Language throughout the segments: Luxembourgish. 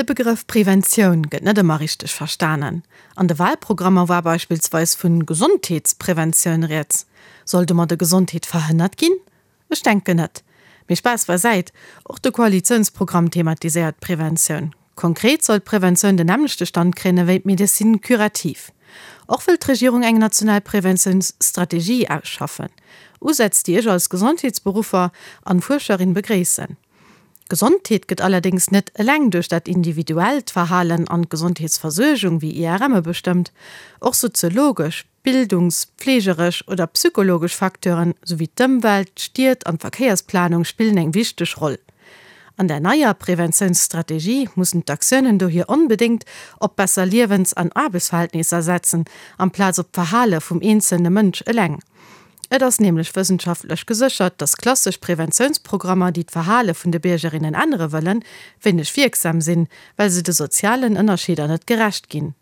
De Begrëff Preventioun gëtt net ëmmer richteg verstanen. An de Wahlprogrammer war beispillsweis vun Gesondheetspreventioun rieds. Soll domadde Gesondheet verhënnert ginn? Ech denken net. Mee Spaass beisäit, och de Koalitiounsprogramm thematiséiert d'Preventioun. Konkret soll d'Preventioun den nämmlechte Stand kréien ewéi d'Médecine curative. Och wëll d'Regierung eng national Preventiounsstrategie ausschaffen. Usätz, déi ech als Gesondheetsberuffer an Fuerscherin begréissen. D'Gesondheet gëtt allerdéngs net eleng duerch dat individuellt Verhalen an d'Gesondheetsversuergung wéi IRMe bestëmmt. Och soziologesch, bildungs-, pflegeresch oder psychologesch Facteuren, souwéi d'Ëmwelt, d'Stied an d'Verkéiersplanung spillen eng wichteg Roll. An der neier Preventiounsstrategie mussen d'Aktiounen dohier onbedéngt op besser Liewens an Aarbechtsverhältnisser setzen, amplaz op d'Verhale vum eenzelne Mënsch eleng. Et ass nämlech wëssenschaftlech geséchert, dass klassesch Preventiounsprogrammer, déi d'Verhale vun de Biergerinnen ännere wëllen, wéineg wierksam sinn, well se de sozialen Ënnerscheeder net gerecht ginn.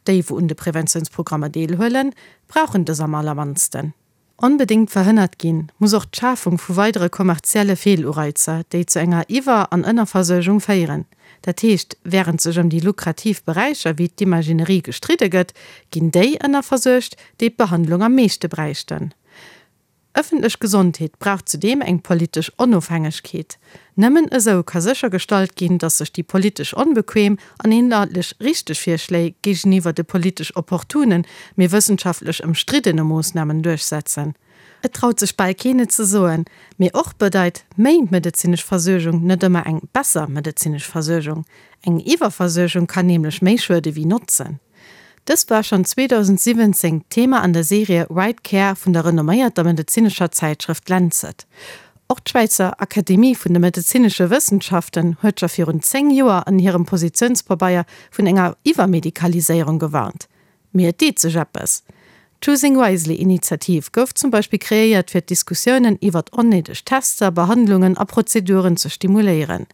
Déi, wou un de Preventiounsprogrammer deelhuelen, brauchen dës am allermannsten. Onbedéngt verhënnert ginn muss och d'Schafung vu weidere kommerzielle Feelureizer, déi zu enger Iwwer an Ënnerversuergung féieren. Dat heescht, wärend sech ëm déi lukrativ Beräicher wéi d'Imaginerie gestridde gëtt, ginn déi ënnerversuergt, déi d'Behandlung am meeschte bräichten. Ëffentlech Gesondheet brauch zudeem eng politesch Onofhängegkeet. Nëmmen esou ka séchergestallt ginn, datt sech déi politesch onbequem an inhaltlech richteg Virschléi géigeniwwer de politesch opportunen, mee wëssenschaftlech ëmstriddene Moossnamen duerchsetzen. Et traut sech bal keen et ze soen, mee och bedeit méi medezinesch Versuergung net ëmmer eng besser medezinesch Versuergung. Eng Iwwerversuergung kann nämlech méi schuede wéi notzen. Dëst war schonn 2017 d'Thema an der Serie Right Care vun der renomméierter medezinescher Zäitschrëft Lancet. Och d'Schwäizer Akademie vun de medezinesche Wëssenschaften huet scho virun 10 Joer an hirem Positiounspabeier vun enger Iwwermedikaliséierung gewarnt. Mee et deet sech eppes. D'Choosing Wisely Initiativ gouf zum Beispill kreéiert fir d'Diskussiounen iwwert onnéideg Tester, Behandlungen a Prozeduren ze stimuléieren.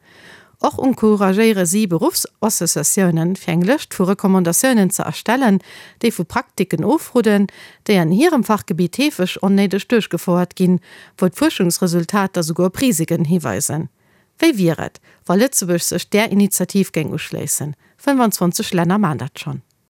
Och encouragéiere si Beruffsassociatiounen, fir eng Lëscht vu Recommandatiounen ze erstellen, déi vu Praktiken ofrodden, déi an hirem Fachgebitt heefeg onnéideg duerchgefouert ginn, wou d'Fuerschungsresultater souguer op Risiken hiweisen. Wéi wier et, wa Lëtzebuerg sech där Initiativ géing uschléissen? 25 Länner maan dat schonn.